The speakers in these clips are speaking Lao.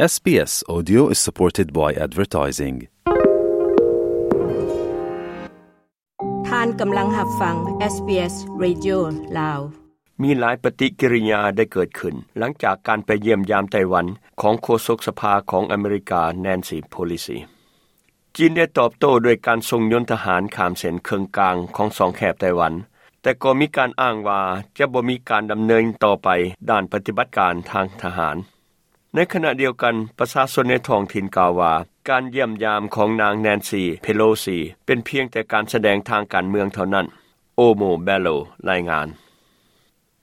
SBS Audio is supported by advertising. ທ່ານກຳລັງຮັບຟັງ SBS Radio ລາວ. ມີຫຼາຍປະຕິກິລິຍາໄດ້ເກີດຂຶ້ນ ຫຼັງຈາກການໄປຢ້ຽມຢາມໄຕ້ຫວັນຂອງໂຄສົກສະພາຂອງອາເມລິກາ Nancy Pelosi. ຈີນໄດ້ຕອບໂຕ້ດ້ວຍການສົ່ງຍົນທະຫານຂ້າມເສັ້ນເຄິ່ງກາງຂອງຊ່ອງແຄບໄຕ້ຫວັນ, ແຕ່ກໍມີການອ້າງວ່າຈະບໍ່ມີການດຳເນີນຕໍ່ໄປດ້ານປະຕິບັດການທາງທະຫານ. ໃນຂະນະດຽວກັນ, ປະຊາຊົນໃນທ້ອງຖິ່ນກ່າວວ່າ ການຢ້ຽມຢາມຂອງນາງ Nancy Pelosi ເປັນພຽງແຕ່ການສະແດງທາງການເມືອງເທົ່ານັ້ນ, Omo Bello ລາຍງານ.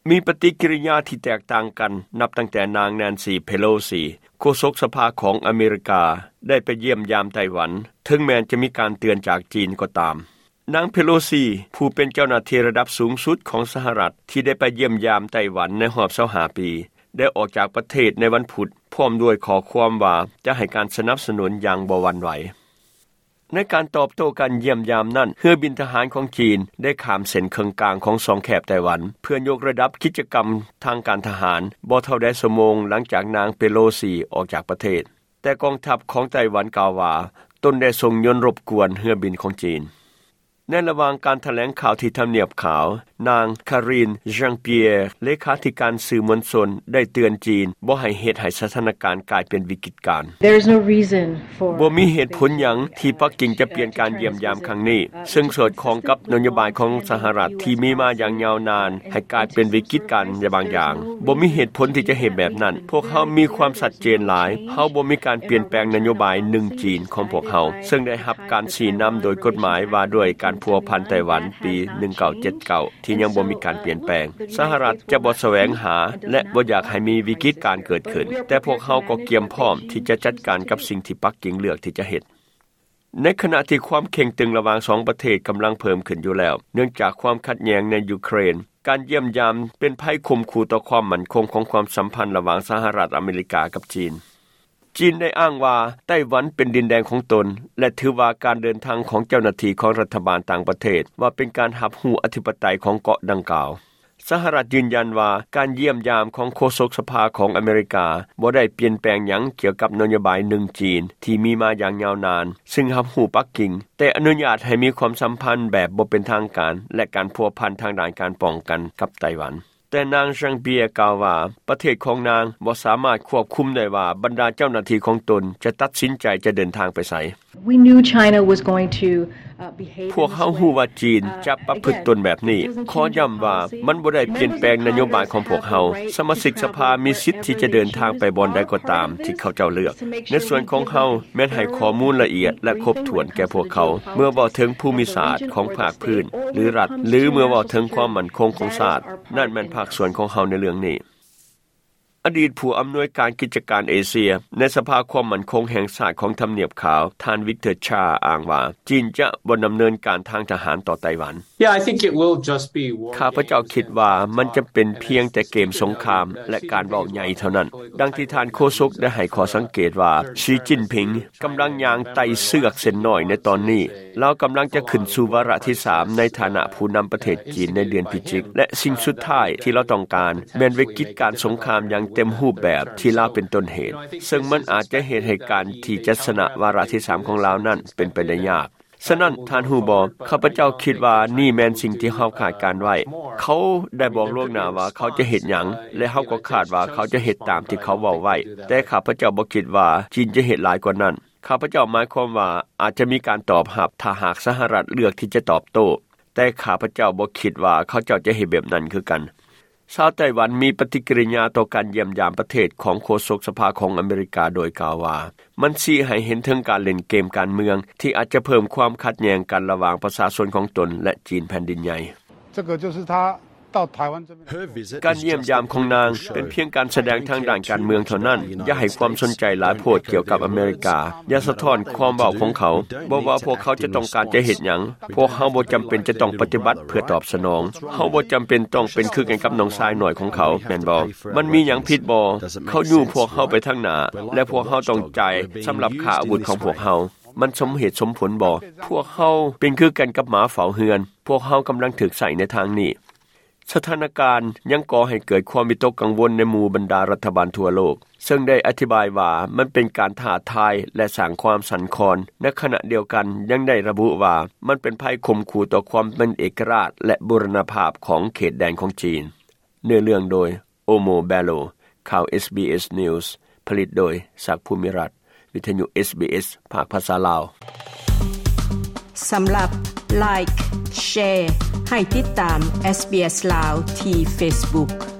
ມີປະຕິກິລິຍາທີ່ແຕກຕ່າງກັນ ນັບຕັ້ງແຕ່ນາງ Nancy Pelosi ໂຄສົກສະພາຂອງອາເມລິກາ ໄດ້ໄປຢ້ຽມຢາມໄຕ້ຫວັນ, ເຖິງແມ່ນຈະມີການເຕືອນຈາກຈີນກໍຕາມ. ນາງ Pelosi ຜູ້ເປັນເຈົ້າໜ້າທີ່ລະດັບສູງສຸດຂອງສະຫະລັດ ທີ່ໄດ້ໄປຢ້ຽມຢາມໄຕ້ຫວັນໃນຮອບຊາວຫ້າປີ ໄດ້ອອກຈາກປະເທດໃນວັນພຸດ ພ້ອມດ້ວຍຂໍ້ຄວາມວ່າຈະໃຫ້ການສະໜັບສະໜູນຢ່າງບໍ່ຫວັ່ນໄຫວ. ໃນການຕອບໂຕ້ການຢ້ຽມຢາມນັ້ນ, ເຮືອບິນທະຫານຂອງຈີນໄດ້ຂ້າມເສັ້ນເຄິ່ງກາງຂອງຊ່ອງແຄບໄຕ້ຫວັນ ເພື່ອຍົກລະດັບກິດຈະກຳທາງການທະຫານ ບໍ່ເທົ່າໃດຊົ່ວໂມງຫຼັງຈາກນາງ Pelosi ອອກຈາກປະເທດ. ແຕ່ກອງທັບຂອງໄຕ້ຫວັນກ່າວວ່າ ຕົນໄດ້ສົ່ງຍົນລົບກວນເຮືອບິນຂອງຈີນ. ໃນລະຫວ່າງການຖະແຫຼງຂ່າວທີ່ທຳນຽບຂາວ, ນາງ Karine Jean-Pierre ເລຂາທິການສື່ມວນຊົນ ໄດ້ເຕືອນຈີນບໍ່ໃຫ້ເຮັດໃຫ້ສະຖານະການກາຍເປັນວິກິດການ. There is no reason for ບໍ່ມີເຫດຜົນຫຍັງທີ່ປັກກິ່ງຈະປ່ຽນການຢ້ຽມຢາມຄັ້ງນີ້, ເຊິ່ງສອດຄ່ອງກັບນະໂຍບາຍຂອງສະຫະລັດທີ່ມີມາຢ່າງຍາວນານ ໃຫ້ກາຍເປັນວິກິດການບາງຢ່າງ. ບໍ່ມີເຫດຜົນທີ່ຈະເຮັດແບບນັ້ນ. ພວກເຮົາມີຄວາມຊັດເຈນຫຼາຍ. ເຮົາບໍ່ມີການປ່ຽນແປງນະໂຍບາຍໜຶ່ງຈີນຂອງພວກເຮົາ, ເຊິ່ງໄດ້ຮັບການຊີ້ນຳໂດຍກົດໝາຍວ່າດ້ວຍການພົວພັນໄຕ້ຫວັນປີໜຶ່ງເກົ້າເຈັດເກົ້າ ທີ່ຍັງບໍ່ມີການປ່ຽນແປງ. ສະຫະລັດຈະບໍ່ສະແຫວງຫາ ແລະ ບໍ່ຢາກໃຫ້ມີວິກິດການເກີດຂຶ້ນ, ແຕ່ພວກເຮົາກໍກຽມພ້ອມທີ່ຈະຈັດການກັບສິ່ງທີ່ປັກກິ່ງເລືອກທີ່ຈະເຮັດ. ໃນຂະນະທີ່ຄວາມເຄັ່ງຕຶງລະຫວ່າງສອງປະເທດກຳລັງເພີ່ມຂຶ້ນຢູ່ແລ້ວ ເນື່ອງຈາກຄວາມຂັດແຍ່ງໃນຢູເຄຣນ, ການຢ້ຽມຢາມເປັນໄພຂົ່ມຂູ່ຕໍ່ຄວາມໝັ້ນຄົງຂອງຄວາມສຳພັນລະຫວ່າງສະຫະລັດອາເມລິກາກັບຈີນ. ຈີນໄດ້ອ້າງວ່າໄຕ້ຫວັນເປັນດິນແດນຂອງຕົນ ແລະ ຖືວ່າການເດີນທາງຂອງເຈົ້າໜ້າທີ່ຂອງລັດຖະບານຕ່າງປະເທດວ່າເປັນການຮັບຮູ້ອະທິປະໄຕຂອງເກາະດັ່ງກ່າວ. ສະຫະລັດຢືນຢັນວ່າການຢ້ຽມຢາມຂອງໂຄສົກສະພາຂອງອາເມລິກາບໍ່ໄດ້ປ່ຽນແປງຫຍັງກ່ຽວກັບນະໂຍບາຍໜຶ່ງຈີນທີ່ມີມາຢ່າງຍາວນານ, ຊຶ່ງຮັບຮູ້ປັກກິ່ງ, ແຕ່ອະນຸຍາດໃຫ້ມີຄວາມສຳພັນແບບບໍ່ເປັນທາງການ ແລະ ການພົວພັນທາງດ້ານການປ້ອງກັນກັບໄຕ້ຫວັນ. ແຕ່ນາງ Jean-Pierre ກ່າວວ່າ ປະເທດຂອງນາງບໍ່ສາມາດຄວບຄຸມໄດ້ວ່າບັນດາເຈົ້າໜ້າທີ່ຂອງຕົນຈະຕັດສິນໃຈຈະເດີນທາງໄປໃສ. We knew China was going to, uh, behave in this way. ພວກເຮົາຮູ້ວ່າຈີນຈະປະພຶດຕົນແບບນີ້. ຂໍຢ້ຳວ່າມັນບໍ່ໄດ້ປ່ຽນແປງນະໂຍບາຍຂອງພວກເຮົາ. ສະມາຊິກສະພາມີສິດທີ່ຈະເດີນທາງໄປບ່ອນໃດກໍຕາມທີ່ເຂົາເຈົ້າເລືອກ. ໃນສ່ວນຂອງເຮົາແມ່ນໃຫ້ຂໍ້ມູນລະອຽດ ແລະ ຄົບຖ້ວນແກ່ພວກເຂົາ ເມື່ອເວົ້າເຖິງພູມິສາດຂອງພາກພື້ນ ຫຼື ລັດ ຫຼື ເມື່ອເວົ້າເຖິງຄວາມໝັ້ນຄົງຂອງຊາດ. ນັ້ນແມ່ນພາກສ່ວນຂອງເຮົາໃນເລື່ອງນີ້. ອະດີດຜູ້ອຳນວຍການກິດຈະການເອເຊຍໃນສະພາຄວາມໝັ້ນຄົງແຫ່ງຊາດຂອງທຳນຽບຂາວ, ທ່ານ Victor Cha ອ້າງວ່າ ຈີນຈະບໍ່ດຳເນີນການທາງທະຫານຕໍ່ໄຕ້ຫວັນ. Yeah, I think it will just be war games. ຂ້າພະເຈົ້າຄິດວ່າມັນຈະເປັນພຽງແຕ່ເກມສົງຄາມ ແລະ ການເວົ້າໃຫຍ່ເທົ່ານັ້ນ. ດັ່ງທີ່ທ່ານໂຄສົກໄດ້ໃຫ້ຂໍ້ສັງເກດວ່າ ສີຈິ້ນຜິງກຳລັງຍ່າງໄຕ່ເຊືອກເສັ້ນນ້ອຍໃນຕອນນີ້. ລາວກຳລັງຈະຂຶ້ນສູ່ວາລະທີສາມໃນຖານະຜູ້ນຳປະເທດຈີນໃນເດືອນພິຈິກ ແລະ ສິ່ງສຸດທ້າຍທີ່ລາວຕ້ອງການແມ່ນວິກິດການສົງຄາມຢ່າງເຕັມຮູບແບບທີ່ລາວເປັນຕົ້ນເຫດ, ເຊິ່ງມັນອາດຈະເຮັດໃຫ້ການທີ່ຈະຊະນະວາລະທີສາມຂອງລາວນັ້ນເປັນໄປໄດ້ຍາກ. ສະນັ້ນ, ທ່ານຮູ້ບໍ່, ຂ້າພະເຈົ້າຄິດວ່ານີ້ແມ່ນສິ່ງທີ່ເຮົາຄາດການໄວ້. ເຂົາໄດ້ບອກລ່ວງໜ້າວ່າເຂົາຈະເຮັດຫຍັງ, ແລະ ເຮົາກໍຄາດວ່າເຂົາຈະເຮັດຕາມທີ່ເຂົາເວົ້າໄວ້, ແຕ່ຂ້າພະເຈົ້າບໍ່ຄິດວ່າຈີນຈະເຮັດຫຼາຍກວ່ານັ້ນ. ຂ້າພະເຈົ້າໝາຍຄວາມວ່າອາດຈະມີການຕອບຮັບ ຖ້າຫາກສະຫະລັດເລືອກທີ່ຈະຕອບໂຕ້, ແຕ່ຂ້າພະເຈົ້າບໍ່ຄິດວ່າເຂົາເຈົ້າຈະເຮັດແບບນັ້ນຄືກັນ. ຊາວໄຕ້ຫວັນມີປະຕິກິລິຍາຕໍ່ການຢ້ຽມຢາມປະເທດຂອງໂຄສົກສະພາຂອງອາເມລິກາ ໂດຍກ່າວວ່າ ມັນຊີ້ໃຫ້ເຫັນເຖິງການຫຼິ້ນເກມການເມືອງທີ່ອາດຈະເພີ່ມຄວາມຂັດແຍ່ງກັນລະຫວ່າງປະຊາຊົນຂອງຕົນ ແລະ ຈີນແຜ່ນດິນໃຫຍ່. 这个就是他 ການຢ້ຽມຢາມຂອງນາງເປັນພຽງການສະແດງທາງດ້ານການເມືອງເທົ່ານັ້ນ. ຢ່າໃຫ້ຄວາມສົນໃຈຫຼາຍໂພດກ່ຽວກັບອາເມລິກາ. ຢ່າສະທ້ອນຄວາມເວົ້າຂອງເຂົາ. ບໍ່ວ່າພວກເຂົາຈະຕ້ອງການຈະເຮັດຫຍັງ, ພວກເຮົາບໍ່ຈຳເປັນຈະຕ້ອງປະຕິບັດເພື່ອຕອບສະໜອງ. ເຮົາບໍ່ຈຳເປັນຕ້ອງເປັນຄືກັນກັບນ້ອງຊາຍນ້ອຍຂອງເຂົາ, ແມ່ນບໍ່? ມັນມີຫຍັງຜິດບໍ່? ເຂົາຍູ້ພວກເຮົາໄປທາງໜ້າ ແລະ ພວກເຮົາຕ້ອງຈ່າຍສຳລັບຄ່າອາວຸດຂອງພວກເຮົາ. ມັນສົມເຫດສົມຜົນບໍ່? ພວກເຮົາເປັນຄືກັນກັບໝາເຝົ້າເຮືອນ. ພວກເຮົາກຳລັງຖືກໃຊ້ໃນທາງນີ້. ສະຖານະການຍັງກໍ່ໃຫ້ເກີດຄວາມວິຕົກກັງວົນໃນໝູ່ບັນດາລັດຖະບານທົ່ວໂລກ ເຊິ່ງໄດ້ອະທິບາຍວ່າມັນເປັນການທ້າທາຍ ແລະ ສ້າງຄວາມສັ່ນຄອນ, ໃນຂະນະດຽວກັນຍັງໄດ້ລະບຸວ່າມັນເປັນໄພຂົ່ມຂູ່ຕໍ່ຄວາມເປັນເອກະລາດ ແລະ ບູລະນະພາບຂອງເຂດແດນຂອງຈີນ. ເນື້ອເລື່ອງໂດຍ ໂອໂມ ແບໂລ. ຂ່າວ SBS News ຜະລິດໂດຍ ສັກ ພູມິລັດ, ວິທະຍຸ SBS ພາກພາສາລາວ. ສຳລັບ Like, Share ໃຫ້ຕິດຕາມ SBS ລາວ ທີ່ Facebook.